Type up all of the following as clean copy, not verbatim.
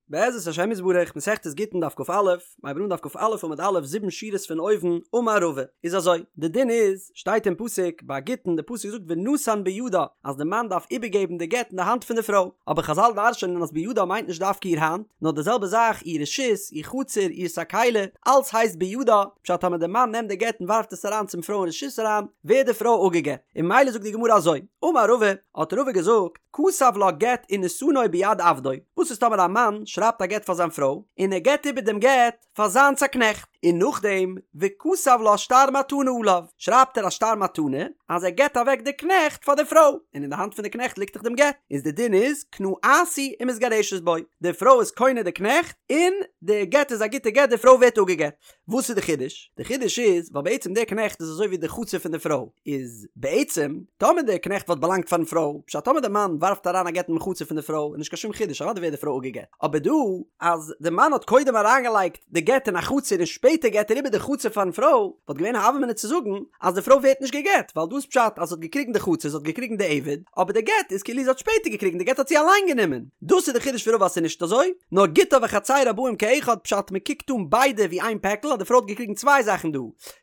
בעזרת השם יתברך, מסכת גיטין דף כ"א, מ'הייבט אן דף כ"א עמוד א', זיבן שורות פון אויבן, אמר רבא, איז אזוי, די דין איז, שטייט אין פסוק, ביי גיטין, די פסוק זאגט ונתן בידה, אז די מאן דארף איבערגעבן די גט אין די האנט פון די פרוי, אבער חזל דרש'נען אז בידה מיינט נישט דווקא איר האנט, נאר די זעלבע זאך איר רשות, איר חצר, איר סאקעלע, אלץ הייסט בידה, פשט טאמער די מאן נעמט די גט און ווארפט עס אריין צום פרוי אין רשות אריין, ווערט די פרוי אפגעגט, און ממילא זאגט די גמרא אזוי, אמר רבא, האט רבא געזאגט, כתב לה גט ונתנו ביד עבדו, וואס איז טאמער א מאן שרייבט א גט פאר זיין פרוי, און ער געבט איבער דעם גט פאר זיינס א קנעכט, און נאכדעם וכתב לה שטר מתנה עליו, שרייבט ער א שטר מתנה אז ער געבט אוועק די קנעכט פאר די פרוי, און אין די האנט פון די קנעכט ליגט דאך דעם גט, איז די דין איז קנאתהו ומתגרשת בו, די פרוי איז קונה די קנעכט, און די גט איז א גוטע גט, די פרוי ווערט אפגעגט. וואס איז די חידוש? די חידוש איז ווייל בעצם דער קנעכט איז אזוי ווי די חצר פון די פרוי, איז בעצם טאמער דער קנעכט וואלט באלאנגט פארן פרוי, פשט טאמער די מאן ווארפט אריין א גט אינעם חצר פון די פרוי איז נישט קיין שום חידוש אוודאי ווערט די פרוי אפגעגט, אבער דא אז די מאן האט קודם אריינגעלייגט די גט אין א חצר און שפעטער געט ער איבער די חצר פארן פרוי, וואלט געווען א הוה אמינא צו זאגן אז די פרוי ווערט נישט געגט, ווייל דא איז פשט אז זי האט געקריגן די חצר, זי האט געקריגן די עבד, אבער די גט איז כאילו זי האט שפעטער געקריגן, די גט האט זי אליין גענומען. דאס איז די חידוש פון רבא אז ס'איז נישט אזוי, נאר גיטה וחצירה באים כאחד פשט מ'קוקט אן ביידע ווי איין פעקל אז די פרוי האט געקריגן צוויי זאכן דא,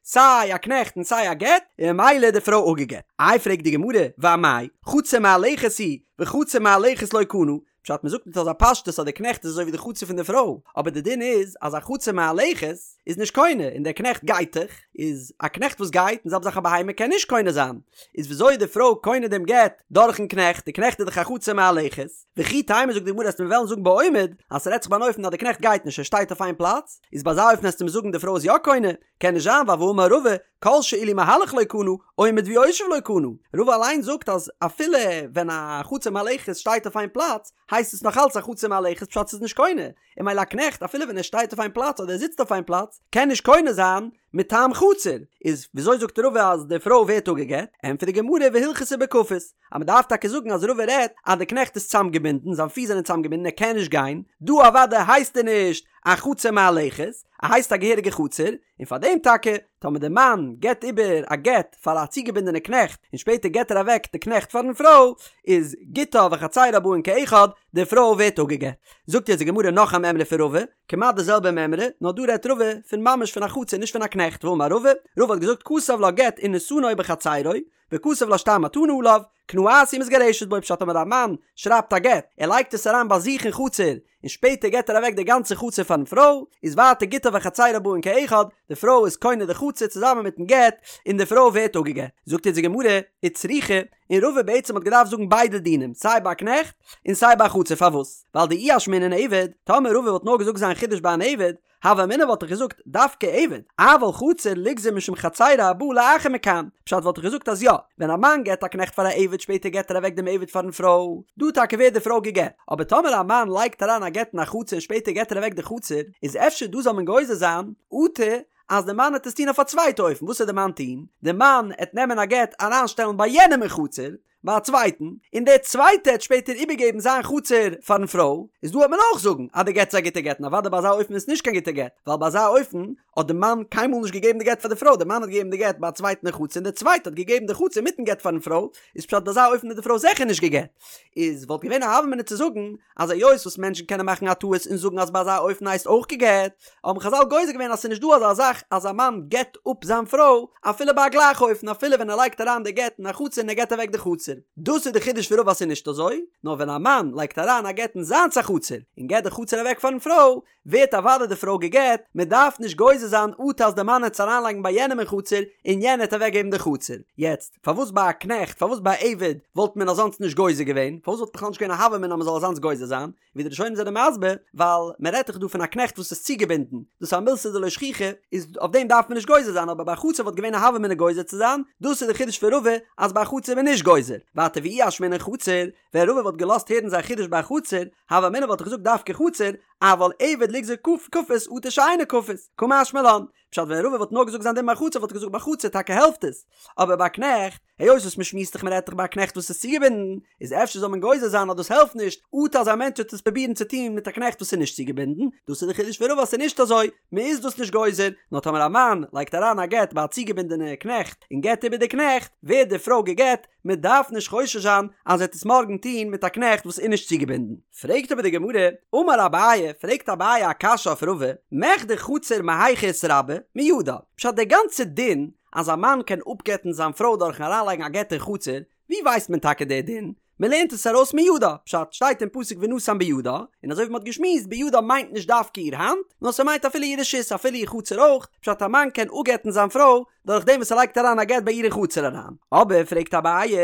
סיי א קנעכט און סיי א גט, און ממילא איז די פרוי אפגעגט. איי פרעגט די גמרא, ואמאי, חצר מהלכת היא, וחצר מהלכת לא קנה, פשט מ'זאגט מיט אזא פשטות אז די קנעכט איז אזוי ווי די חצר פון די פרוי, אבער די דין איז אז א חצר מהלכת איז נישט קונה און דער קנעכט גייט דאך, איז א קנעכט וואס גייט און זעלבע זאך א בהמה קען נישט קונה זיין, איז וויאזוי איז די פרוי קונה דעם גט דורכן קנעכט, די קנעכט איז דאך א חצר מהלכת, וכי תימא זאגט די גמרא אז מיר וועלן זאגן בעומד אז ס'רעדט זיך ביי אן אופן אז די קנעכט גייט נישט ער שטייט אויף איין פלאץ, איז ביי אזא אופן עסטו מיר זאגן די פרוי איז יא קונה, קען נישט זיין ווייל והאמר רבא כל שאילו מהלך לא קנה, עומד ויושב לא קנה, רבא אליין זאגט אז אפילו ווען א חצר מהלכת שטייט אויף איין פלאץ הייסט עס נאך אלץ א חצר מהלכת פשט ס'איז נישט קונה, און ממילא א קנעכט אפילו ווען ער שטייט אויף איין פלאץ אדער ער זיצט אויף איין פלאץ קען נישט קונה זיין מטעם חצר, איז וויאזוי זאגט רבא אז די פרוי ווערט אפגעגט? ענטפערט די גמרא והלכתא בכפות, אז מען דארף טאקע זאגן אז רבא רעדט אז די קנעכט איז צאמגעבינדן, זיין פיס זענען צאמגעבינדן ער קען נישט גיין, דא אוודאי הייסט ער נישט א חצר מהלכת, ער הייסט א געהעריגע חצר, און פאר דעם טאקע טאמער די מאן געבט איבער א גט פאר א צוגעבינדענע קנעכט און שפעטער געבט ער אוועק די קנעכט פארן פרוי, איז גיטה וחצירה באין כאחד, די פרוי ווערט אפגעגט. זאגט יעצט די גמרא נאך א מימרא פון רבא, כמעט די זעלבע מימרא, נאר דא רעדט רבא פון ממש פון א חצר נישט פון א קנעכט, ואמר רבא, רבא האט געזאגט כתב לה גט ונתנו בחצירו, וכתב לה שטר מתנה עליו, קנאתהו ומתגרשת בו פשט טאמער א מאן שרייבט א גט, ער לייגט עס אריין ביי זיך אין חצר, און שפעטער געט ער אוועק די גאנצע חצר פארן פרוי, איז ווייטער גיטה וחצירה באין כאחד, די פרוי איז קונה די חצר צוזאמען מיטן גט, און די פרוי ווערט אפגעגט. זאגט אונז די גמרא, וצריכא, און רבא בעצם האט געדארפט זאגן ביידע דינים, סיי ביי א קנעכט, און סיי ביי א חצר, פארוואס? ווייל דאי אשמעינן עבד, טאמער רבא וואלט נאר געזאגט זיין חידוש ביי אן עבד, הוה אמינא וואלט איך געזאגט דווקא עבד, אבל חצר ליגזור משום חצירה הבאה לאחר מכאן, פשט וואלט איך געזאגט אז יא, ווען א מאן געט א קנעכט פאר א עבד שפעטער געט ער אוועק דעם עבד פארן פרוי, דא טאקע ווערט די פרוי גע'גט, אבער טאמער א מאן לייגט אריין א גט אין א חצר און שפעטער געט ער אוועק די חצר, איז אפשר דא זאל מען גוזר זיין, אטו אז די מאן עט עס טון אויף א צווייטע אופן, וואס עט די מאן טון? די מאן עט נעמען א גט אריינשטעלן ביי יענעם אין חצר, ביי א צווייטן, און דער צווייטער העט שפעטער איבערגעבן זיין חצר פארן פרוי, איז דא העט מען אויך זאגן אז די גט איז א גוטע גט, און אוודאי ביי אזא אופן איז נישט קיין גוטע גט, ווייל ביי אזא אופן האט די מאן קיינמאל נישט געגעבן די גט פאר די פרוי, די מאן האט געגעבן די גט ביי א צווייטן אין חצר און דער צווייטער האט געגעבן די חצר מיטן גט פארן פרוי, איז פשט ביי אזא אופן איז די פרוי זיכער נישט גע'גט. איז וואלט געווען א הוה אמינא צו זאגן אז היות וואס מענטשן קענען מאכן א טעות און זאגן אז ביי אזא אופן הייסט אויך גע'גט, האבן חזל גוזר געווען אז ס'איז נישט דא אזא זאך אז א מאן גט אפ זיין פרוי אפילו ביי א גלייכע אופן אפילו ווען ער לייגט אריין די גט אין א חצר און ער געט אוועק די חצר. דאס איז די חידוש פון רבא אז ס'איז נישט אזוי, נאר ווען א מאן לייגט אריין א גט אין זיינס א חצר און געט די חצר אוועק פארן פרוי, ווערט אוודאי די פרוי גע'גט, מען דארף נישט גוזר זיין אטו אז די מאן העט עס אריינלייגן ביי יענעם אין חצר און יענער העט אוועקגעבן די חצר. יעצט, פארוואס ביי א קנעכט, פארוואס ביי א עבד וואלט מען אזאנס נישט גוזר געווען? פארוואס וואלט בכלל נישט געווען א הוה אמינא אז מען זאל אזאנס גוזר זיין? ווי די ראשונים זענען מסביר, ווייל מען רעדט דאך דא פון א קנעכט וואס איז צוגעבינדן, דאס איז א מילתא דלא שכיחא, איז אויף דעם דארף מען נישט גוזר זיין, אבער ביי א חצר וואלט געווען א הוה אמינא גוזר צו זיין, דאס איז די חידוש פון רבא אז ביי א חצר איז מען נישט גוזר. ווייטער ואי אשמעינן חצר, ווען רבא וואלט געלאזט הערן זיין חידוש ביי א חצר, הוה אמינא וואלט איך געזאגט דווקא חצר, אבל עבד ליגזור כפות אטו שאינו כפות, קא משמע לן. פשט ווען רבא וואלט נאר געזאגט זיין דין ביי חצר וואלט איך געזאגט ביי חצר טאקע העלפט עס, אבער ביי קנעכט, היות וואס מ'שמועסט דאך מ'רעדט דאך ביי א קנעכט וואס איז צוגעבינדן, איז אפשר זאל מען גוזר זיין אז דאס העלפט נישט, אטו אז א מענטש וועט עס פרובירן צו טון מיט א קנעכט וואס איז נישט צוגעבינדן, דאס איז די חידוש פון רבא אז ס'איז נישט אזוי, מ'איז דאס נישט גוזר, נאר טאמער א מאן לייגט אריין א גט ביי א צוגעבינדענע קנעכט און געבט איבער די קנעכט, ווערט די פרוי גע'גט, מען דארף נישט חושש זיין אז ער וועט עס מארגן טון מיט א קנעכט וואס איז נישט צוגעבינדן. פרעגט אבער די גמרא, אמר אביי, אביי, פרעגט אביי א קשיא אויף רבא, מכדי חצר מהיכא איתרבי? מידה. פשט די גאנצע דין אז א מאן קען אפגט'ן זיין פרוי דורכן אריינלייגן א גט אין חצר, ווי ווייסט מען טאקע די דין? מען לערנט עס ארויס מידה, פשט שטייט אין פסוק ונתן בידה, און אזוי ווי מען האט געשמועסט בידה מיינט נישט דווקא איר האנט, נאר ס'מיינט אפילו איר רשות אפילו איר חצר אויך, פשט א מאן קען אפגט'ן זיין פרוי דורך דעם וואס ער לייגט אריין א גט ביי איר אין חצר אריין. אבער פרעגט אביי,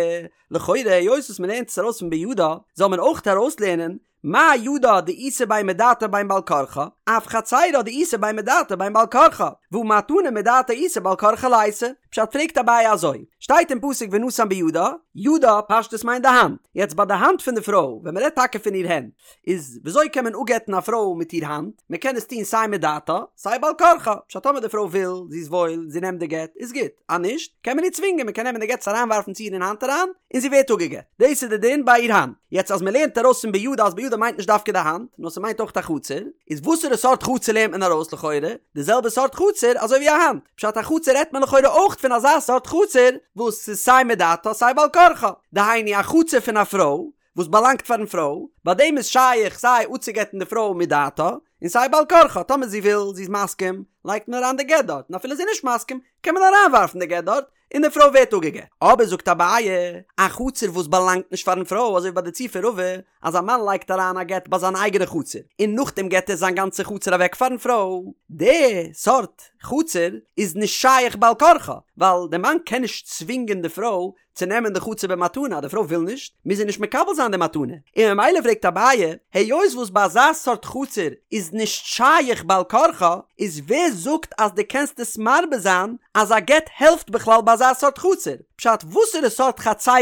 לכאורה היות וואס מען לערנט עס ארויס פון בידה, זאל מען אויך ארויסלערנען מה ידה דאיתא בין מדעתה בין בעל כרחה, אף חצירה דאיתא בין מדעתה בין בעל כרחה, והא מתנה מדעתה איתא בעל כרחה ליתא. פשט פרעגט אביי אזוי, שטייט אין פסוק ונתן בידה, ידה פשטות מיינט די האנט, יעצט ביי די האנט פון די פרוי, ווען מ'רעדט טאקע פון איר הענט, איז וויאזוי קען מען אפגט'ן א פרוי מיט איר האנט, מ'קען עס טון סיי מדעתה, סיי בעל כרחה, פשט טאמער די פרוי וויל, זי איז וואויל, זי נעמט די גט, איז גוט, אז נישט, קען מען איר צווינגען, מ'קען נעמען די גט עס אריינווארפן צו איר אין האנט אריין, און זי ווערט אפגעגט. דאס איז די דין ביי איר האנט. יעצט אז מ'לערנט ארויס פון בידה אז בידה מיינט נישט דווקא די האנט, נאר ס'מיינט אויך א חצר, איז וואסערע סארט חצר לערנט מען ארויס לכאורה? די זעלבע סארט חצר אזוי ווי א האנט. פשט א חצר רעדט מען לכאורה אויך פון אזא סארט חצר וואס ס'איז סיי מדעתה סיי בעל כרחה. דהיינו א חצר פון א פרוי וואס באלאנגט פארן פרוי, ביי דעם איז שייך סיי אפצוגט'ן די פרוי מדעתה און סיי בעל כרחה, טאמער זי וויל, זי איז מסכים, לייגט מען אריין די גט דארט, און אפילו זי איז נישט מסכים, קען מען אריינווארפן די גט דארט, און די פרוי ווערט אפגעגט. אבער זאגט אביי, א חצר וואס באלאנגט נישט פארן פרוי, אזוי ווי ביי די ציור פון רבא, אז א מאן לייגט אריין א גט ביי זיין אייגענע חצר, און נאכדעם געט ער זיין גאנצע חצר אוועק פארן פרוי, די סארט חצר איז נישט שייך בעל כרחה, ווייל די מאן קען נישט צווינגען די פרוי צו נעמען די חצר במתנה, אז די פרוי וויל נישט, מוז זי נישט מקבל זיין די מתנה, און ממילא פרעגט אביי, היות וואס ביי אזא סארט חצר איז נישט שייך בעל כרחה, איז ווער זאגט אז דו קענסט עס מרבה זיין אז א גט העלפט בכלל ביי אזא סארט חצר? פשט וואסערע סארט חצרות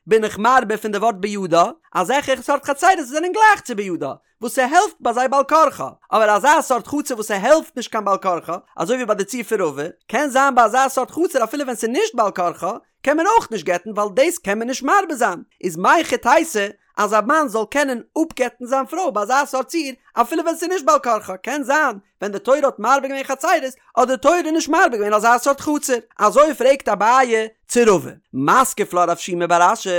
בין איך מרבה פון די ווארט בידה? אזעלכע סארט חצרות וואס זענען גלייך צו בידה, וואס ס'העלפט ביי זיי בעל כרחה, אבער אזא סארט חצר וואס ס'העלפט נישט קיין בעל כרחה, אזוי ווי ביי די ציור פון רבא, קען זיין ביי אזא סארט חצר אפילו ווען ס'איז נישט בעל כרחה, קען מען אויך נישט גט'ן ווייל דאס קען מען נישט מרבה זיין, איז מהיכי תיתי אז א מאן זאל קענען אפגט'ן זיין פרוי ביי אזא סארט ציור אפילו ווען ס'איז נישט בעל כרחה, קען זיין ווען די תורה האט מרבה געווען חצרות האט די תורה נישט מרבה געווען אזא סארט חצר, אזוי פרעגט אביי צו רבא, מתקיף לה רב שימי בר אשי,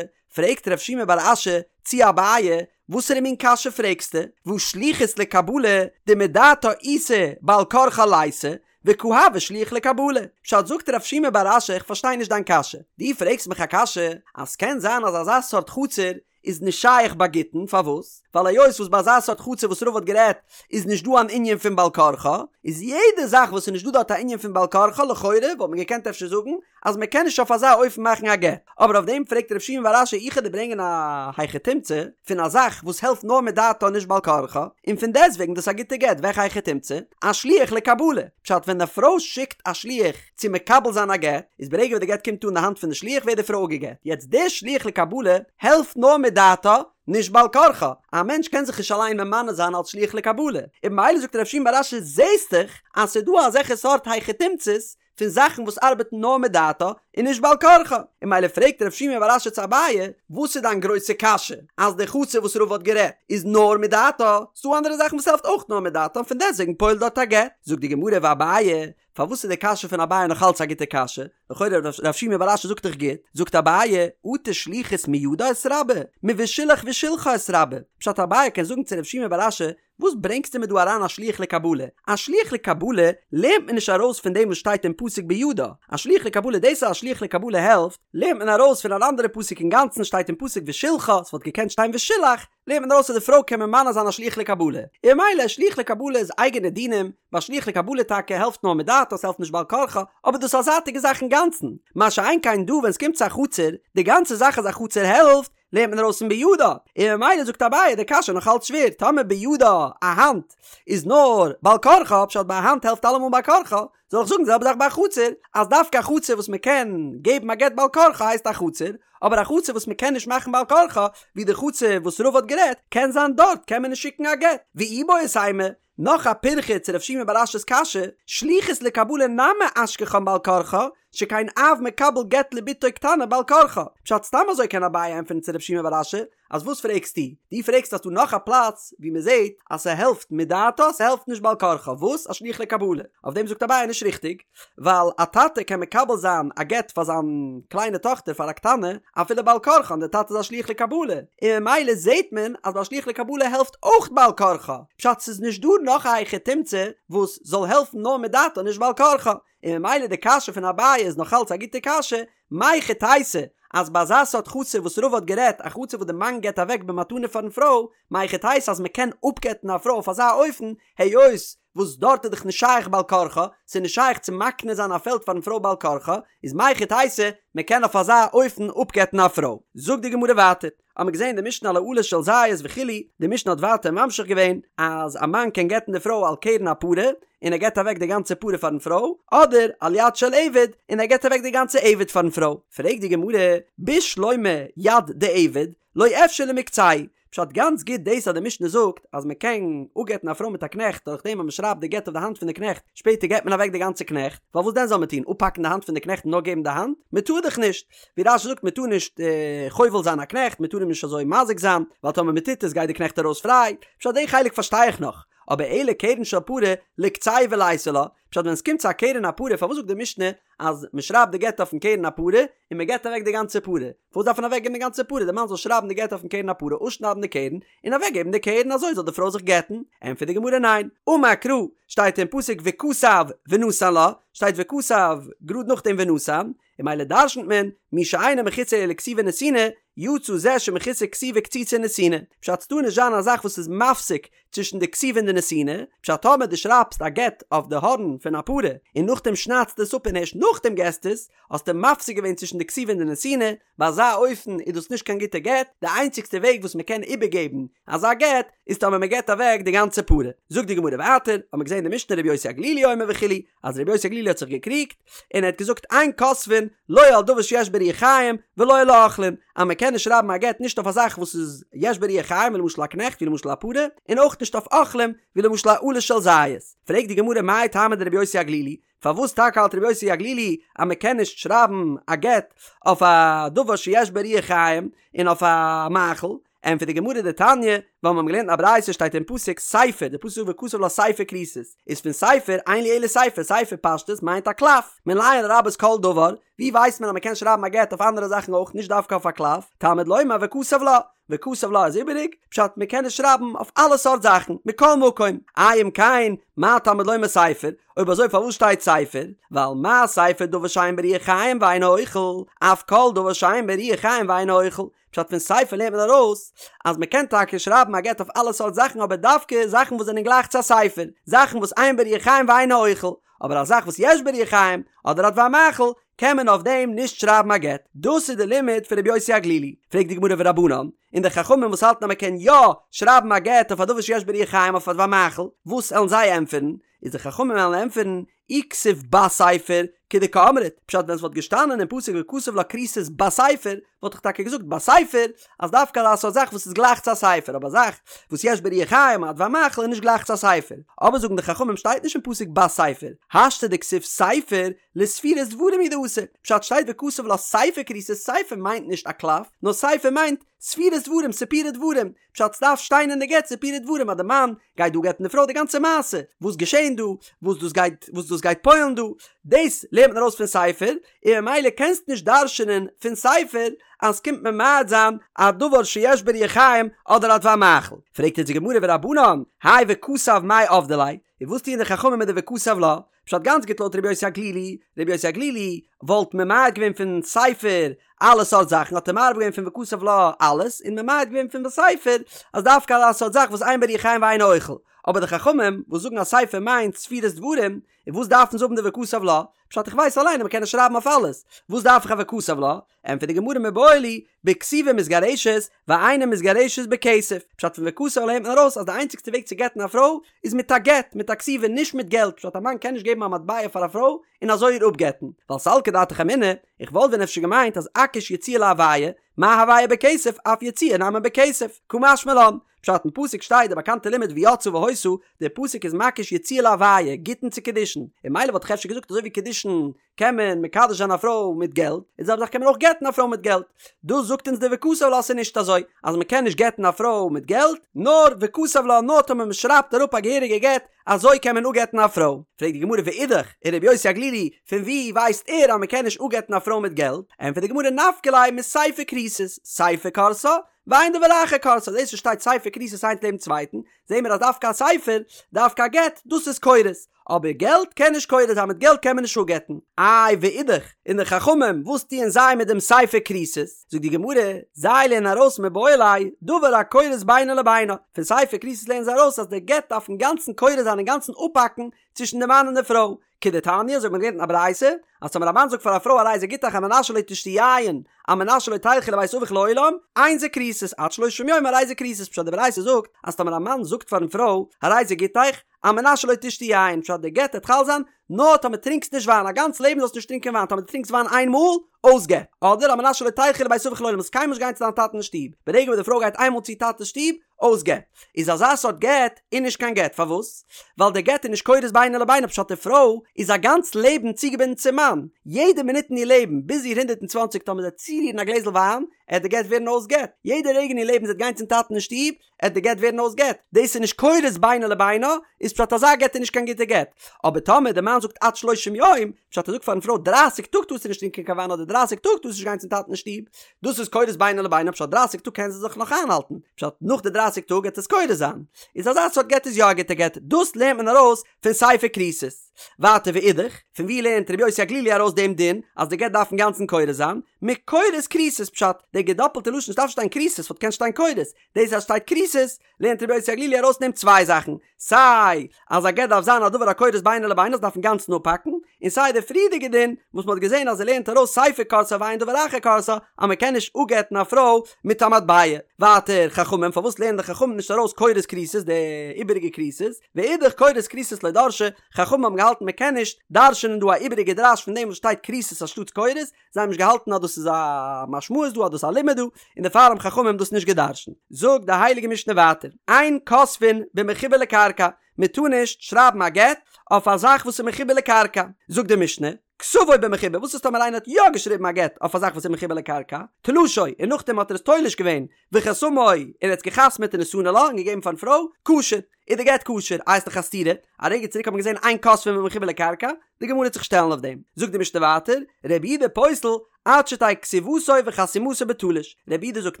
פרעגט רב שימי בר אשי צו אביי, וואסערע מין קשיא פרעגסטו? והא שליחות לקבלה דמדעתה איתא בעל כרחה ליתא, וקא הוי שליח לקבלה. פשט זאגט רב שימי בר אשי איך פארשטיי נישט דיין קשיא. דו פרעגסט מיך א קשיא אז סקען זיין אז אזא סארט חצר איז נישט שייך ביי גיטין פארוואס? ווייל היות וואס ביי אזא סארט חצר וואס רבא האט גערעדט איז נישט דא אן ענין פון בעל כרחה איז יעדע זאך וואס איז נישט דא דארט א ענין פון בעל כרחה לכאורה וואלט מען געקענט אפשר זאגן אז מען קען נישט אויף אזא אופן מאכן א גט, אבער אויף דעם פרעגט רב שימי בר אשי איך וועל דיר ברענגען א היכי תמצא פון א זאך וואס העלפט נאר מדעתה נישט בעל כרחה, און פון דעסטוועגן דאס א גוטע גט, וועלכע היכי תמצא? א שליח לקבלה, פשט ווען די פרוי שיקט א שליח צו מקבל זיין א גט, איז ברגע וואס די גט קומט אן די האנט פון די שליח ווערט די פרוי אפגעגט, יעצט דער שליח לקבלה העלפט נאר מדעתה נישט בעל כרחה, א מענטש קען זיך נישט אליין ממנה זיין אלס שליח לקבלה, און ממילא זאגט רב שימי בר אשי זעסט דאך אז ס'איז דא אזעלכע סארט היכי תמצא'ס פון זאכן וואס ארבעטן נאר מדעתה און נישט בעל כרחה, און ממילא פרעגט רב שימי בר אשי צו אביי, וואס איז דיין גרויסע קשיא אז די חצר וואס רבא האט גערעדט איז נאר מדעתה, ס'דא אנדערע זאכן וואס העלפט אויך נאר מדעתה און פון דעסטוועגן פועל'ט דארט א גט? זאגט די גמרא ואביי, פארוואס איז די קשיא פון אביי נאך אלץ א גוטע קשיא? לכאורה רב שימי בר אשי זאגט דאך גוט, זאגט אביי, אטו שליחות מידה איתרבי, מושלח ושלחה איתרבי, פשט אביי קען זאגן צו רב שימי בר אשי, וואס ברענגסטו מיר דא אריין א שליח לקבלה? א שליח לקבלה לערנט מען נישט ארויס פון דעם וואס שטייט אין פסוק בידה. א שליח לקבלה, דאס אז א שליח לקבלה העלפט, לערנט מען ארויס פון אן אנדערע פסוק אינגאנצן שטייט אין פסוק ושלחה, ס'וואלט געקענט שטיין ושילח, לערנט מען ארויס אז די פרוי קען ממנה זיין א שליח לקבלה. און ממילא שליח לקבלה איז אייגענע דינים, ביי שליח לקבלה טאקע העלפט נאר מדעתה, ס'העלפט נישט בעל כרחה, אבער דאס איז א זייטיגע זאך אינגאנצן. מה שאין כן דא ווען ס'קומט צו א חצר, די גאנצע זאך אז א חצר העלפט, לערנט מען ארויס פון בידה, און ממילא זאגט אביי די קשיא נאך אלץ שווער, טאמער בידה א האנט איז נאר בעל כרחה, פשט ביי א האנט העלפט אלעמאל בעל כרחה, זאל איך זאגן די זעלבע זאך ביי א חצר, אז דווקא א חצר וואס מען קען געבן א גט בעל כרחה הייסט א חצר, אבער א חצר וואס מען קען נישט מאכן בעל כרחה, ווי די חצר וואס רבא האט גערעדט, קען זיין דארט קען מען נישט שיקן א גט, ואיבעית אימא, נאך א פירכא צו רב שימי בר אשי'ס קשיא, שליחות לקבלה נמי אשכחן בעל כרחה, שכן אב מקבל גט לבתו קטנה בעל כרחה. פשט סתם אזוי קען אביי ענטפערן צו רב שימי בר אשי, אז וואס פרעגסטו? דו פרעגסט אז ס'דא נאך א פלאץ ווי מען זעט אז ס'העלפט מדעתה ס'העלפט נישט בעל כרחה, וואס? א שליח לקבלה. אויף דעם זאגט אביי נישט ריכטיג, ווייל א טאטע קען מקבל זיין א גט פאר זיין קליינע טאכטער פאר א קטנה אפילו בעל כרחה און דער טאטע איז א שליח לקבלה, און ממילא זעט מען אז ביי א שליח לקבלה העלפט אויך בעל כרחה, פשט ס'איז נישט דא נאך א היכי תמצא וואס זאל העלפן נאר מדעתה נישט בעל כרחה, און ממילא די קשיא פון אביי איז נאך אלץ א גוטע קשיא, מהיכי תיתי אז ביי אזא סארט חצר וואס רבא האט גערעדט, א חצר וואס די מאן געבט אוועק במתנה פארן פרוי, מהיכי תיתי אז מ'קען אפגט'ן א פרוי אויף אזא אופן, היות וואס דארט איז דאך נישט שייך בעל כרחה, ס'איז נישט שייך צו מקנה זיין א פעלד פארן פרוי בעל כרחה, איז מהיכי תיתי מ'קען אויף אזא אופן אפגט'ן א פרוי. זאגט די גמרא ווייטער, האמיר געזען די משנה על האלה של זית וכו', די משנה האט ווייטער ממשיך געווען אז א מאן קען גט'ן די פרוי על קרן הפרה, און ער געבט אוועק די גאנצע פרה פארן פרוי, אדער על יד של עבד, און ער געבט אוועק די גאנצע עבד פארן פרוי. פרעגט די גמרא, בשלמא יד דעבד, לא אפשר למקצהו, פשט גאנץ גוט דאס אז די משנה זאגט אז מען קען אפגט'ן א פרוי מיט א קנעכט דורך דעם אז מען שרייבט די גט אויף די האנט פון די קנעכט שפעטער געבט מען אוועק די גאנצע קנעכט, ווייל וואס דען זאל מען טון אפהאקן די האנט פון די קנעכט און נאר געבן די האנט? מען טאר דאך נישט! ווי רש"י זאגט מען טאר נישט חובל זיין א קנעכט מען טאר אים נישט אזוי מזיק זיין ווייל טאמער מען טוט עס גייט די קנעכט ארויס פריי, פשט די חלק פארשטיי איך נאך, אבער אלא קרן של פרה לקצהו וליתי לה, פשט ווען עס קומט צו א קרן הפרה פארוואס זאגט די משנה אז מען שרייבט די גט אויפן קרן הפרה און מען געבט אוועק די גאנצע פרה, פארוואס דארף מען אוועק געבן די גאנצע פרה, די מאן זאל שרייבן די גט אויפן קרן הפרה, אפשניידן די קרן, און אוועק געבן די קרן אזוי זאל די פרוי זיך גט'ן, ענטפערט די גמרא ניין, אמר קרא, שטייט אין פסוק וכתב ונתן לה, שטייט וכתב גראד נאכדעם ונתן, און ממילא דרשנ'ט מען, מי שאינו מחוסר אלא כתיבה ונתינה, יצא זה שמחוסר כתיבה קציצה ונתינה, פשט ס'טאר נישט זיין א זאך וואס איז מפסיק צווישן די כתיבה און די נתינה, פשט טאמער דו שרייבסט א גט אויף די הארן פון א פרה און נאכדעם שניידסטו עס אפ און הערשט נאכדעם געסטו עס, האסטו מפסיק געווען צווישן די כתיבה און די נתינה, ביי אזא אופן איז דאס נישט קיין גוטע גט, די איינציגסטע וועג וואס מען קען איבערגעבן אזא גט איז טאמער מען געבט אוועק די גאנצע פרה. זאגט די גמרא ווייטער, האט מען געזען אין די משנה רבי יוסי הגלילי אומר וכו', אז רבי יוסי הגלילי האט זיך געקריגט, און ער האט געזאגט אין כותבין לא על דבר שיש בו רוח חיים ולא על האוכלין, אז מען קען נישט שרייבן א גט נישט אויף א זאך וואס איז יש בו רוח חיים ווי למשל א קנעכט ווי למשל א פרה, און אויך נישט אויף אוכלים ווי למשל א עלה של זית. פרעגט די גמרא מאי טעמא דרבי יוסי הגלילי, פארוואס טאקע האלט רבי יוסי הגלילי אז מען קען נישט שרייבן א גט אויף א דבר שיש בו רוח חיים און אויף א מאכל, ענטפערט די גמרא דתניא, ווייל מיר האבן געלערנט אין א ברייתא שטייט אין פסוק ספר, די פסוק זאגט וכתב לה ספר כריתות, איז פון ספר אין לי אלא ספר, ספר פשטות מיינט א קלף, מנין לרבות כל דבר, ווי ווייסט מען אז מען קען שרייבן א גט אויף אנדערע זאכן אויך נישט דווקא אויף א קלף, תלמוד לומר וכתב לה, וכתב לה איז איבעריג, פשט מען קען עס שרייבן אויף אלע סארט זאכן, מכל מקום, אי אם כן, מה תלמוד לומר ספר, אויב אזוי פארוואס שטייט ספר? ווייל מה ספר דבר שאין בו רוח חיים ואינו אוכל, אף כל דבר שאין בו רוח חיים ואינו אוכל, פשט פון ספר לערנט מען ארויס אז מען קען טאקע שרייבן א גט אויף אלע סארט זאכן אבער דווקא זאכן וואס זענען גלייך צו א ספר, זאכן וואס אין בו רוח חיים ואינו אוכל, אבער א זאך וואס יש בו רוח חיים אדער א דבר מאכל קען מען אויף דעם נישט שרייבן א גט. דאס איז די לימוד פון רבי יוסי הגלילי. פרעגט די גמרא ורבנן, און די חכמים וואס האלטן אז מען קען יא שרייבן א גט אויף א דבר שיש בו רוח חיים אויף א דבר מאכל, וואס עלן זיי ענטפערן? איז די חכמים וועלן ענטפערן, אי כתיב בספר, כדקאמרת, פשט ווען ס'וואלט געשטאנען אין פסוק וכתב לה כריתות בספר, וואלט איך טאקע געזאגט בספר, אז דווקא אזא סארט זאך וואס איז גלייך צו א ספר, אבער א זאך וואס יש בו רוח חיים א דבר מאכל איז נישט גלייך צו א ספר. אבער זאגן די חכמים שטייט נישט אין פסוק בספר, השתא דכתיב ספר, לספירת דברים הוא דאתא, פשט שטייט וכתב לה ספר כריתות, ספר מיינט נישט א קלף, נאר ספר מיינט ספירת דברים, סיפורי דברים, פשט סדארף שטיין אין די גט סיפורי דברים אז די מאן גייט דא גט'ן די פרוי די גאנצע מעשה וואס געשען דא וואס דאס גייט וואס דאס גייט פועל'ן דא דאס לערנט מען ארויס פון ספר און ממילא קענסט נישט דרש'נען פון ספר אז ס'קומט ממעט זיין א דבר שיש בו רוח חיים אדער א דבר מאכל פרעגט אונז די גמרא ורבנן האי וכתב מאי עבדי ליה און וואס טוען די חכמים מיט די וכתב לה פשט גאנץ גוט לויט רבי יוסי הגלילי, רבי יוסי הגלילי וואלט ממעט געווען פון ספר אלע סארט זאכן האט ער מרבה געווען פון וכתב לה אלעס און ממעט געווען פון בספר אז דווקא אזא סארט זאך וואס אין בו רוח חיים ואינו אוכל, אבער די חכמים וואס זאגן אז ספר מיינט ספירת דברים, און וואס דארפן זיי האבן די וכתב לה? פשט איך ווייס אליין אז מען קען עס שרייבן אויף אלעס, וואס דארף איך א וכתב לה? ענטפערט די גמרא מיבעי להו בכתיבה מתגרשת ואינה מתגרשת בכסף, פשט פון וכתב לה לערנט מען ארויס אז די איינציגסטע וועג צו גט'ן א פרוי איז מיט א גט, מיט א כתיבה, נישט מיט געלט, פשט א מאן קען נישט געבן א מטבע פאר א פרוי און אזוי איר אפגט'ן, ווייל סלקא דעתך אמינא, איך וואלט ווען אפשר געמיינט אז אקיש יציאה להוויה, מה הוויה בכסף אף יציאה נמי בכסף, קא משמע לן. פשט אין פסוק שטייט די באקאנטע לימוד ויצאה והיתה, די פסוק איז מקיש יציאה להוויה, גיטין צו קידושין, און ממילא וואלט איך אפשר געזאגט אזוי ווי קידושין קען מען מקדש זיין א פרוי מיט געלט, איז די זעלבע זאך קען מען אויך גט'ן א פרוי מיט געלט. דאס זאגט אונז די וכתב לה אז ס'איז נישט אזוי אז מ'קען נישט גט'ן א פרוי מיט געלט, נאר וכתב לה נאר טאמער מ'שרייבט אראפ א געהעריגע גט, אזוי קען מען אפגט'ן א פרוי. פרעגט די גמרא ואידך, און רבי יוסי הגלילי, פון וואו ווייסט ער אז מ'קען נישט אפגט'ן א פרוי מיט געלט? ענטפערט די גמרא נפקא ליה מסיפא כריתות, סיפא כורתה, ואין דבר אחר כורתה, דאס וואס שטייט סיפא כריתות איינס לעבן צווייטן, זעהן מיר אז דווקא א ספר, דווקא א גט, דאס איז כורת. אבער געלט קען נישט כורת זיין, מיט געלט קען מען נישט אפגט'ן. איי ואידך, און די חכמים, וואס טוען זיי מיט דעם סיפא כריתות? זאגט די גמרא, זיי לערנען ארויס מיבעי ליה, דבר הכורת בינו לבינה, פון סיפא כריתות לערנען זיי ארויס אז דער גט דארף אינגאנצן כורת זיין אינגאנצן אפהאקן צווישן די מאן און די פרוי, כדתניא, אזוי האט מען געלערנט אין א ברייתא, אז טאמער א מאן זאגט פאר א פרוי הרי זה גיטך על מנת שלא תשתי יין, על מנת שלא תלכי לבית אביך לעולם, אין זה כריתות, עד שלושים יום הרי זה כריתות, פשט די ברייתא זאגט אז טאמער א מאן זאגט פארן פרוי הרי זה גיטך, על מנת שלא תשתי יין, פשט די גט העט חל זיין נאר טאמער טרינקסט נישט וויין, א גאנץ לעבן זאלסטו נישט טרינקען וויין, טאמער דו טרינקסט וויין איין מאל, אויס גט. אדער על מנת שלא תלכי לבית אביך לעולם, זאלסט קיינמאל נישט גיין צו דיין טאטן אין שטוב, ברגע וואס די פרוי גייט איינמאל צו איר טאטע'ס שטוב, אויס גט. איז אזא סארט גט איז נישט קיין גט, פארוואס? ווייל די גט איז נישט כורת בינו לבינה, פשט די פרוי איז א גאנץ לעבן צוגעבינדן צום מאן, יעדע מינוט אין איר לעבן, ביז איר 120 טאמער זי וועט צורירן א גלעזל וויין, עט די גט ווערן אויס גט, יעדע רגע אין איר לעבן זי וועט גיין צום טאטן אין שטוב, עט די גט ווערן אויס גט, דאס איז נישט כורת בינו לבינה, איז פשט אזא גט איז נישט קיין גוטע גט, אבער טאמער די מאן זאגט עד שלושים יום, פשט ער זאגט פארן פרוי דרייסיג טאג טארסטו נישט טרינקען קיין וויין אדער דרייסיג טאג טארסטו נישט גיין צום טאטן אין שטוב, דאס איז כורת בינו לבינה פשט דרייסיג טאג קען זי זיך נאך איינהאלטן, פשט נאך די דרייסיג טאג עט עס כורת זיין, איז אזא סארט גט איז יא א גוטע גט, דאס לערנט מען ארויס פון סיפא כריתות. ווייטער ואידך, פון ווי לערנט רבי יוסי הגלילי ארויס דעם דין אז די גט דארף אינגאנצן כורת זיין? מכורת כריתות פשט, די געדאפלטע לשון ס'דארף שטיין כריתות וואלט געקענט שטיין כורת, דאס אז שטייט כריתות לערנט רבי יוסי הגלילי ארויס פון דעם צוויי זאכן, סיי אז א גט דארף זיין א דבר הכורת בינו לבינה ס'דארף אינגאנצן אפהאקן, און סיי די פריערדיגע דין וואס מ'האט געזען אז ער לערנט ארויס סיפא כורתה ואין דבר אחר כורתה אז מ'קען נישט אפגט'ן א פרוי מיט א מטבע. ווייטער חכמים פארוואס לערנען די חכמים נישט ארויס כורת כריתות די איבעריגע כריתות? ואידך כורת כריתות לא דרשי, חכמים האבן געהאלטן מען קען נישט דרש'ענען דא א איבעריגע דרש פון דעם וואס שטייט כריתות אנשטאטס כורת, זיי האבן נישט געהאלטן אז דאס איז א משמעות דא אז דאס איז א לימוד דא, און דערפאר האבן חכמים דאס נישט געדרש'נט. זאגט די הייליגע משנה ווייטער, אין כותבין במחובר לקרקע, מען טאר נישט שרייבן א גט אויף א זאך וואס איז מחובר לקרקע, זאגט די משנה, כתבו במחובר, וואס איז טאמער איינער האט יא געשריבן א גט אויף א זאך וואס איז מחובר לקרקע, תלשו, און נאכדעם האט ער עס תולש געווען, וחתמו, און ער האט עס געחתמעט ונתנו לה, און געגעבן פארן פרוי, כשר, איז די גט כשר, איי איז דאך א סתירה, א רגע צוריק האט מען געזען אין כותבין במחובר לקרקע, די גמרא וועט זיך שטעלן אויף דעם, זאגט די משנה ווייטער, רבי יהודה פוסל, עד שתהא כתיבתו וחתימתו בתלוש, רבי יהודה זאגט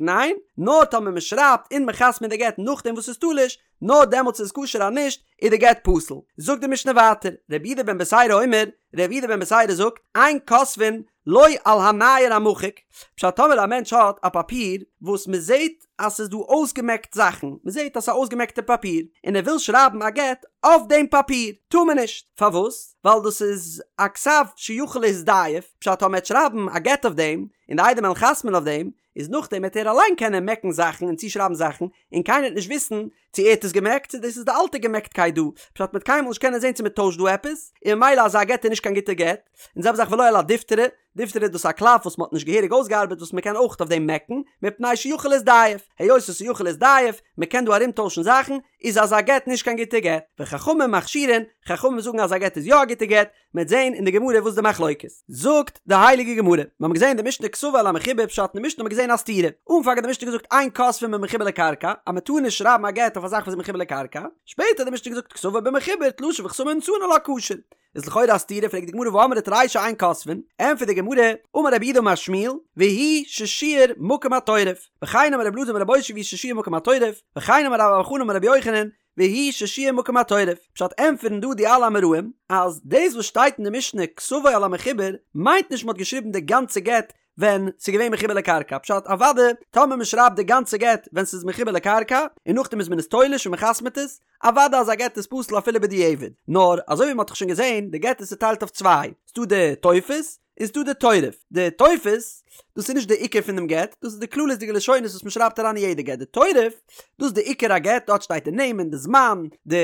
ניין, נאר טאמער מען שרייבט און מען חתמעט די גט נאכדעם וואס ס'איז תלוש, נאר דעמאלטס איז עס כשר אז נישט איז די גט פסול. זאגט די משנה ווייטער, רבי יהודה בן בתירא אומר, רבי יהודה בן בתירא זאגט, אין כותבין לא על הנייר המחוק, פשט טאמער א מענטש האט א פאפיר וואס מען זעט אז ס'איז דא אויסגעמעקט זאכן, מען זעט אז ס'איז א אויסגעמעקטע פאפיר, און ער וויל שרייבן א גט אויף דעם פאפיר, טאר מען נישט, פארוואס? ווייל דאס איז א כתב שיכול להזדייף, פשט טאמער ער וועט שרייבן א גט אויף דעם, און די עדים וועלן חתמ'ן אויף דעם, איז נאכדעם וועט ער אליין קענען מעקן זאכן און צושרייבן זאכן, און קיינער וועט נישט וויסן צו ער האט עס געמעקט צו דאס איז די אלטע געמעקטקייט דא, פשט מ'וועט קיינמאל נישט קענען זען צו מ'טוישט דא עפעס, און ממילא אזא גט איז נישט קיין גוטע גט, און זעלבע זאך ולא על הדיפתרא, דיפתרא איז דאס א קלף וואס מ'האט נישט געהעריג אויסגעארבעט וואס מ'קען אויך אויף דעם מעקן, מפני שיכול להזדייף, היות עס איז יכול להזדייף, מ'קען דא ארומטוישן זאכן, איז אזא גט נישט קיין גוטע גט, וחכמים מכשירין, חכמים זאגן אז א גט איז יא א גוטע גט, מ'עט זעהן אין די גמרא וואס די מחלוקת. זאגט די הייליגע גמרא, מיר האבן געזעהן אין די משנה כתבו על המחובר פשט אין די משנה האבן מיר געזעהן א סתירה, אנפאנג האט די משנה געזאגט אין כותבין במחובר לקרקע, אז מען טאר נישט שרייבן א גט אויף א זאך וואס איז מחובר לקרקע, שפעטער האט די משנה געזאגט כתבו במחובר תלשו וחתמו ונתנו לה כשר. איז לכאורה א סתירה, פרעגט די גמרא והאמרת רישא אין כותבין, ענטפערט די גמרא, אמר רב יהודה אמר שמואל, והוא ששיער מקום התורף, וכן אמר רבי אלעזר אמר רבי אושעיא והוא ששיער מקום התורף, וכן אמר רבה בר בר חנה אמר רבי יוחנן, והוא ששיער מקום התורף, פשט ענטפערן דא די אלע אמוראים אז דאס וואס שטייט אין די משנה כתבו על המחובר מיינט נישט מ'האט געשריבן די גאנצע גט ווען ס'איז געווען מחובר לקרקע, פשט אוודאי טאמער מ'שרייבט די גאנצע גט ווען ס'איז מחובר לקרקע און נאכדעם איז מען עס תולש און מ'חתמ'ט עס, אוודאי אז א גט איז פסול אפילו בדיעבד, נאר אזוי ווי מ'האט דאך שוין געזען די גט איז צוטיילט אויף צוויי, ס'דא די טופס, איז דא די תורף. די טופס, דאס איז נישט די עיקר פון דעם גט, דאס איז די כללית'דיגע לשונות וואס מען שרייבט אריין אין יעדע גט. די תורף, דאס איז די עיקר הגט, דארט שטייט די נעמען, די זמן, די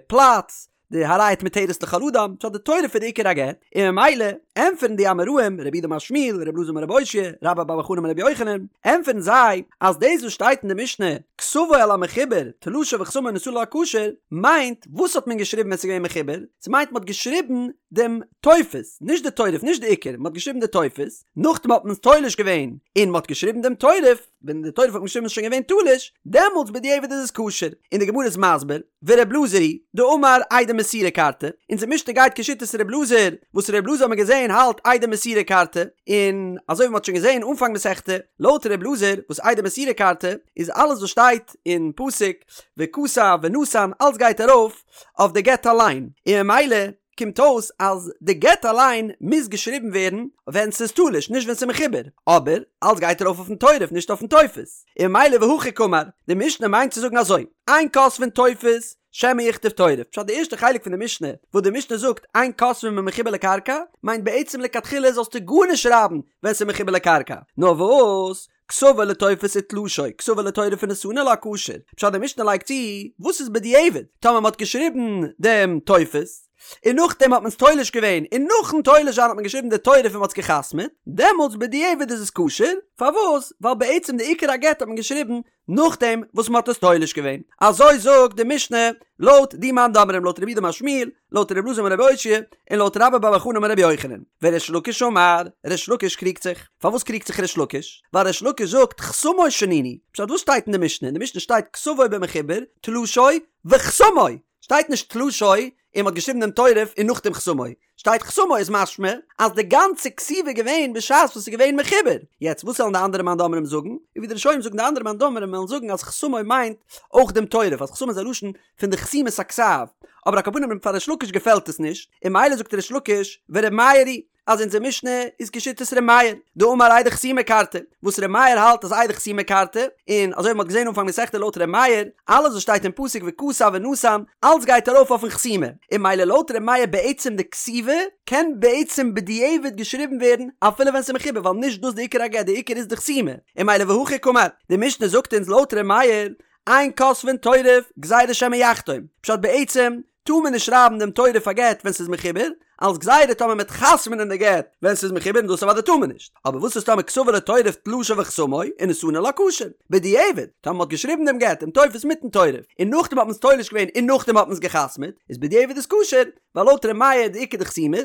פלאץ, די הרי את מותרת לכל אדם, פשט די תורף איז די עיקר הגט, און ממילא, ענטפערן די אמוראים, רב יהודה אמר שמואל, ר' אלעזר אמר רבי אושעיא, רבה בר בר חנה אמר רבי יוחנן, ענטפערן זיי אז דאס וואס שטייט אין די משנה כתבו על המחובר תלשו וחתמו ונתנו לה כשר, מיינט וואס האט מען געשריבן ווען ס'איז געווען מחובר? ס'מיינט מ'האט געשריבן דעם טופס, נישט די תורף, נישט די עיקר, מ'האט געשריבן די טופס, נאכדעם האט מען עס תולש געווען און מ'האט געשריבן דעם תורף, ווען די תורף האט מען געשריבן איז שוין געווען תלוש, דעמאלטס בדיעבד איז עס כשר, און די גמרא איז מסביר, ור' אלעזר היא דאמר עדי מסירה כרתי, אונזער משנה גייט כשיטת ר' אלעזר, וואס ר' אלעזר האט מען געזען האלט עדי מסירה כרתי, און אזוי ווי מ'האט שוין געזען אנפאנג מסכתא, לויט ר' אלעזר וואס עדי מסירה כרתי, איז אלעס וואס שטייט אין פסוק וכתב ונתן אלס גייט ארויף אויף די גט אליין, און ממילא קומט אויס אז די גט אליין מוז געשריבן ווערן ווען ס'איז תלוש נישט ווען ס'איז מחובר, אבער אלס גייט ארויף אויפן תורף נישט אויפן טופס, און ממילא והכי קאמר, די משנה מיינט צו זאגן אזוי, אין כותבין טופס שמא יכתוב תורף, פשט די ערשטע חלק פון די משנה וואס די משנה זאגט אין כותבין במחובר לקרקע מיינט בעצם לכתחילה זאלסטו גארנישט שרייבן ווען ס'איז מחובר לקרקע, נאר וואס כתבו לטופס ותלשו, כתבו לתורף ונתנו לה כשר. פשט די משנה לייגט צו, וואס איז בדיעבד? טאמער מ'האט געשריבן דעם טופס, און נאכדעם האט מען עס תולש געווען, און נאכן תולש זיין האט מען געשריבן די תורף און מ'האט עס גע'חתמ'עט, דעמאלטס בדיעבד איז עס כשר, פארוואס? ווייל בעצם די עיקר הגט האט מען געשריבן נאכדעם וואס מ'האט עס תולש געווען. אזוי זאגט די משנה לויט די מאן דאמרים לויט רב יהודה אמר שמואל, לויט ר' אלעזר אמר רבי אושעיא, און לויט רבה בר בר חנה אמר רבי יוחנן. וריש לקיש אמר, ריש לקיש קריגט זיך. פארוואס קריגט זיך ריש לקיש? ווייל ריש לקיש זאגט חתמו שנינו. פשט וואס שטייט אין די משנה? אין די משנה שטייט כתבו במחובר, תלשו, וחתמו! שטייט נישט תלשו און מ'האט געשריבן דעם תורף און נאכדעם חתמו. שטייט חתמו איז משמע אז די גאנצע כתיבה איז געווען בשעת וואס ס'איז געווען מחובר. יעצט וואס וועלן די אנדערע מאן דאמרים זאגן? און ווי די ראשונים זאגן די אנדערע מאן דאמרים וועלן זאגן אז חתמו מיינט אויך דעם תורף אז חתמו איז א לשון פון די חתימת הכתב, אבער על כל פנים פאר ריש לקיש געפעלט עס נישט, און ממילא זאגט ריש לקיש ור' מאיר היא אז אונזער משנה איז כשיטת ר' מאיר, דאמר עדי חתימה כרתי, וואס ר' מאיר האלט אז עדי חתימה כרתי, און אזוי ווי מ'האט געזען אנפאנג מסכתא לויט ר' מאיר, אלעס וואס שטייט אין פסוק וכתב ונתן, אלץ גייט ארויף אויפן חתימה, און ממילא לויט ר' מאיר בעצם די כתיבה קען בעצם בדיעבד געשריבן ווערן אפילו ווען ס'איז מחובר ווייל נישט דאס די עיקר הגט די עיקר איז די חתימה, און ממילא והכי קאמר, די משנה זאגט אונז לויט ר' מאיר אין כותבין תורף גזירה שמא יחתום, פשט בעצם טאר מען נישט שרייבן דעם תורף א גט ווען ס'איז מחובר, אלס גזירה טאמער מ'עט חתמ'נען די גט ווען ס'איז מחובר און דאס אוודאי טאר מען נישט, אבער וואס איז טאמער כתבו לתורף תלשו וחתמו ונתנו לה כשר, בדיעבד, טאמער מ'האט געשריבן דעם גט דעם טופס מיטן תורף, און נאכדעם האט מען עס תולש געווען און נאכדעם האט מען עס געחתמ'עט, איז בדיעבד איז כשר, ווייל לויט ר' מאיר די עיקר די חתימות,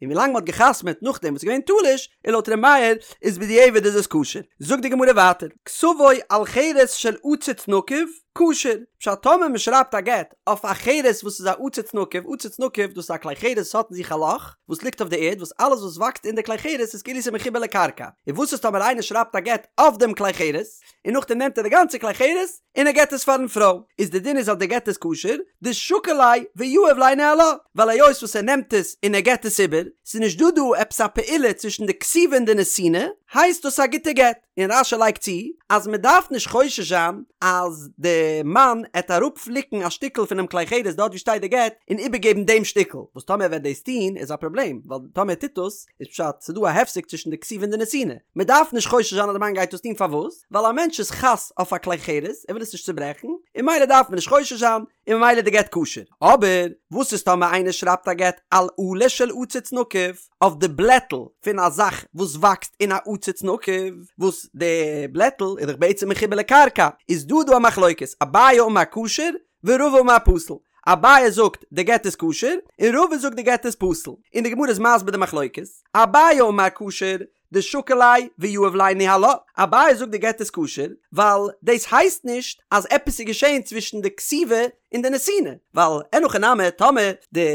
און ווילאנג מ'האט געחתמ'עט נאכדעם וואס איז געווען תלוש, און לויט ר' מאיר איז בדיעבד איז עס כשר. זאגט די גמרא ווייטער, כתבו על חרס של עציץ נקוב, כשר, פשט טאמער מ'שרייבט א גט אויף א חרס וואס איז א עציץ נקוב, עציץ נקוב דאס איז א כלי חרס וואס האט אין זיך א לאך וואס ליגט אויף די ערד וואס אלעס וואס וואקסט אין די כלי חרס איז כאילו ס'איז מחובר לקרקע, און וואס איז טאמער איינער שרייבט א גט אויף דעם כלי חרס, און נאכדעם נעמט ער די גאנצע כלי חרס און ער געט עס פארן פרוי, איז די דין איז אז די גט איז כשר, דשקיל ליה ויהיב ליה ניהלה, ווייל היות וואס ער נעמט עס און ער געט עס איבער, ס'איז נישט דא דא עפעס א פעולה צווישן די כתיבה און די נתינה, הייסט דאס א גוטע גט. און רש"י לייגט צו אז מען דארף נישט חושש זיין אז די מאן עט אראפפליקן א שטיקל פונעם כלי חרס דארט ווי שטייט די גט און איבערגעבן דעם שטיקל, וואס טאמער ער וועט דאס טון איז א פראבלעם, ווייל טאמער ער טוט דאס איז פשט ס'איז דא א הפסק צווישן די כתיבה און די נתינה, מען דארף נישט חושש זיין אז די מאן גייט דאס טון פארוואס? ווייל א מענטש איז חס אויף א כלי חרס ער וויל עס נישט צוברעכן און ממילא דארף מען נישט חושש זיין און ממילא די גט כשר, אבער וואס איז טאמער איינער שרייבט א גט על עלה של עציץ נקוב אויף די בלעטל פון א זאך וואס וואקסט אין א עציץ נקוב וואס די בלעטל איז דאך בעצם מחובר לקרקע איז דא דא א מחלוקת אביי אמר כשר ורבא אמר פסול, אביי זאגט די גט איז כשר, און רבא זאגט די גט איז פסול, און די גמרא איז מסביר די מחלוקת, אביי אמר כשר, דשקיל ליה ויהיב ליה ניהלה, אביי זאגט די גט איז כשר, ווייל דאס הייסט נישט אז עפעס איז געשען צווישן די כתיבה און די נתינה, ווייל אין הכי נמי טאמער די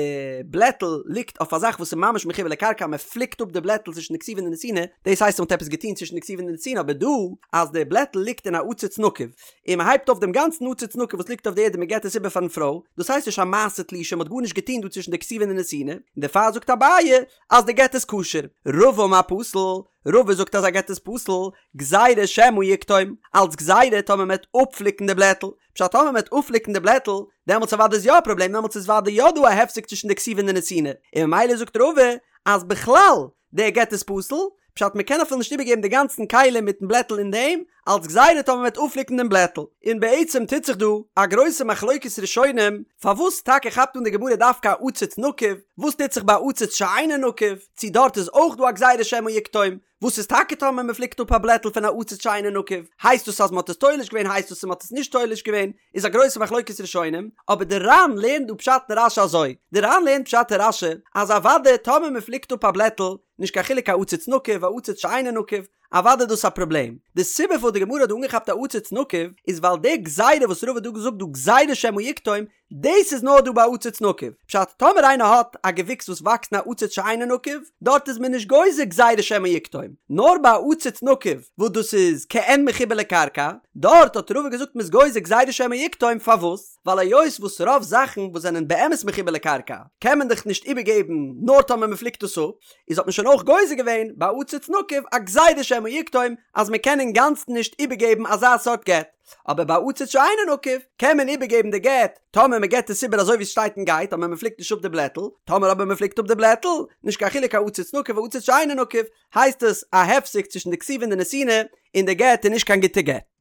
בלעטל ליגט אויף א זאך וואס איז ממש מחובר לקרקע מען פליקט אפ די בלעטל צווישן די כתיבה און די נתינה, דאס הייסט אז מען האט עפעס געטון צווישן די כתיבה און די נתינה, אבער דא אז די בלעטל ליגט אין א עציץ נקוב, און מען הייבט אויף דעם גאנצן עציץ נקוב וואס ליגט אויף די ערד און מען געבט עס איבער פארן פרוי, דאס הייסט נישט א מעשה תלישה, מען האט גארנישט געטון דא צווישן די כתיבה און די נתינה, און דערפאר זאגט אביי אז די גט איז כשר. רבא אמר פסול, רבא זאגט אז א גט איז פסול, גזירה שמא יקטום, אלץ גזירה טאמער מען וועט אפפליקן די בלעטל, פשט טאמער מען וועט אפפליקן די בלעטל, דעמאלטס אוודאי איז יא א פראבלעם, דעמאלטס איז אוודאי יא דא א הפסק צווישן די כתיבה און די נתינה, און ממילא זאגט רבא אז בכלל דער גט איז פסול, פשט מ'קען אפילו נישט איבערגעבן די גאנצן כלי מיטן בלעטל אין דעם, אלס גזירה טאמער מ'וועט אפפליקן דעם בלעטל. און בעצם טוט זיך דא א גרויסע מחלוקת ראשונים, פארוואס טאקע כאפט אן די גמרא דווקא א עציץ נקוב, וואס טוט זיך ביי א עציץ שאינו נקוב, צו דארט איז אויך דא א גזירה שמא יקטום, וואס איז טאקע טאמער מען פליקט אפ א בלעטל פון א עציץ שאינו נקוב, הייסט דאס אז מען האט עס תולש געווען הייסט דאס אז מען האט עס נישט תולש געווען, איז א גרויסע מחלוקת ראשונים, אבער די ר"ן לערנט דא פשט אין רש"י אזוי, די ר"ן לערנט פשט אין רש"י אז אוודאי טאמער מען פליקט אפ א בלעטל, נישט קיין חילוק א עציץ נקוב א עציץ שאינו נקוב, אוודאי איז דאס א פראבלעם. די סיבה פארוואס די גמרא האט דא אנגעכאפט א עציץ נקוב איז ווייל די גזירה וואס רבא האט דא געזאגט דא גזירה שמא יקטום, דאס איז נאר דא ביי עציץ נקוב. פשט, טאמער איינער האט א געוויקס וואס וואקסט אין א עציץ שאינו נקוב, דארט איז מען נישט גוזר גזירה שמא יקטום. נאר ביי א עציץ נקוב וואס דאס איז כעין מחובר לקרקע, דארט האט רבא געזאגט מ'איז גוזר גזירה שמא יקטום, פארוואס? ווייל היות וואס רוב זאכן וואס זענען באמת מחובר לקרקע קען מען דאך נישט איבערגעבן נאר טאמער מ'פליקט עס אפ, איז האט מען שוין אויך גוזר געווען ביי עציץ נקוב א גזירה שמא יקטום אז מ'קען אינגאנצן נישט איבערגעבן אזא סארט גט. אבער ביי עציץ שאינו נקוב קען מען איבערגעבן די גט טאמער מען געבט עס איבער אזוי ווי עס שטייט און גייט אבער מען פליקט נישט אפ די בלעטל, טאמער אבער מען פליקט אפ די בלעטל, נישט קיין חילוק א עציץ נקוב א עציץ שאינו נקוב, הייסט עס א הפסק צווישן די כתיבה און די נתינה, און די גט איז נישט קיין גוטע גט.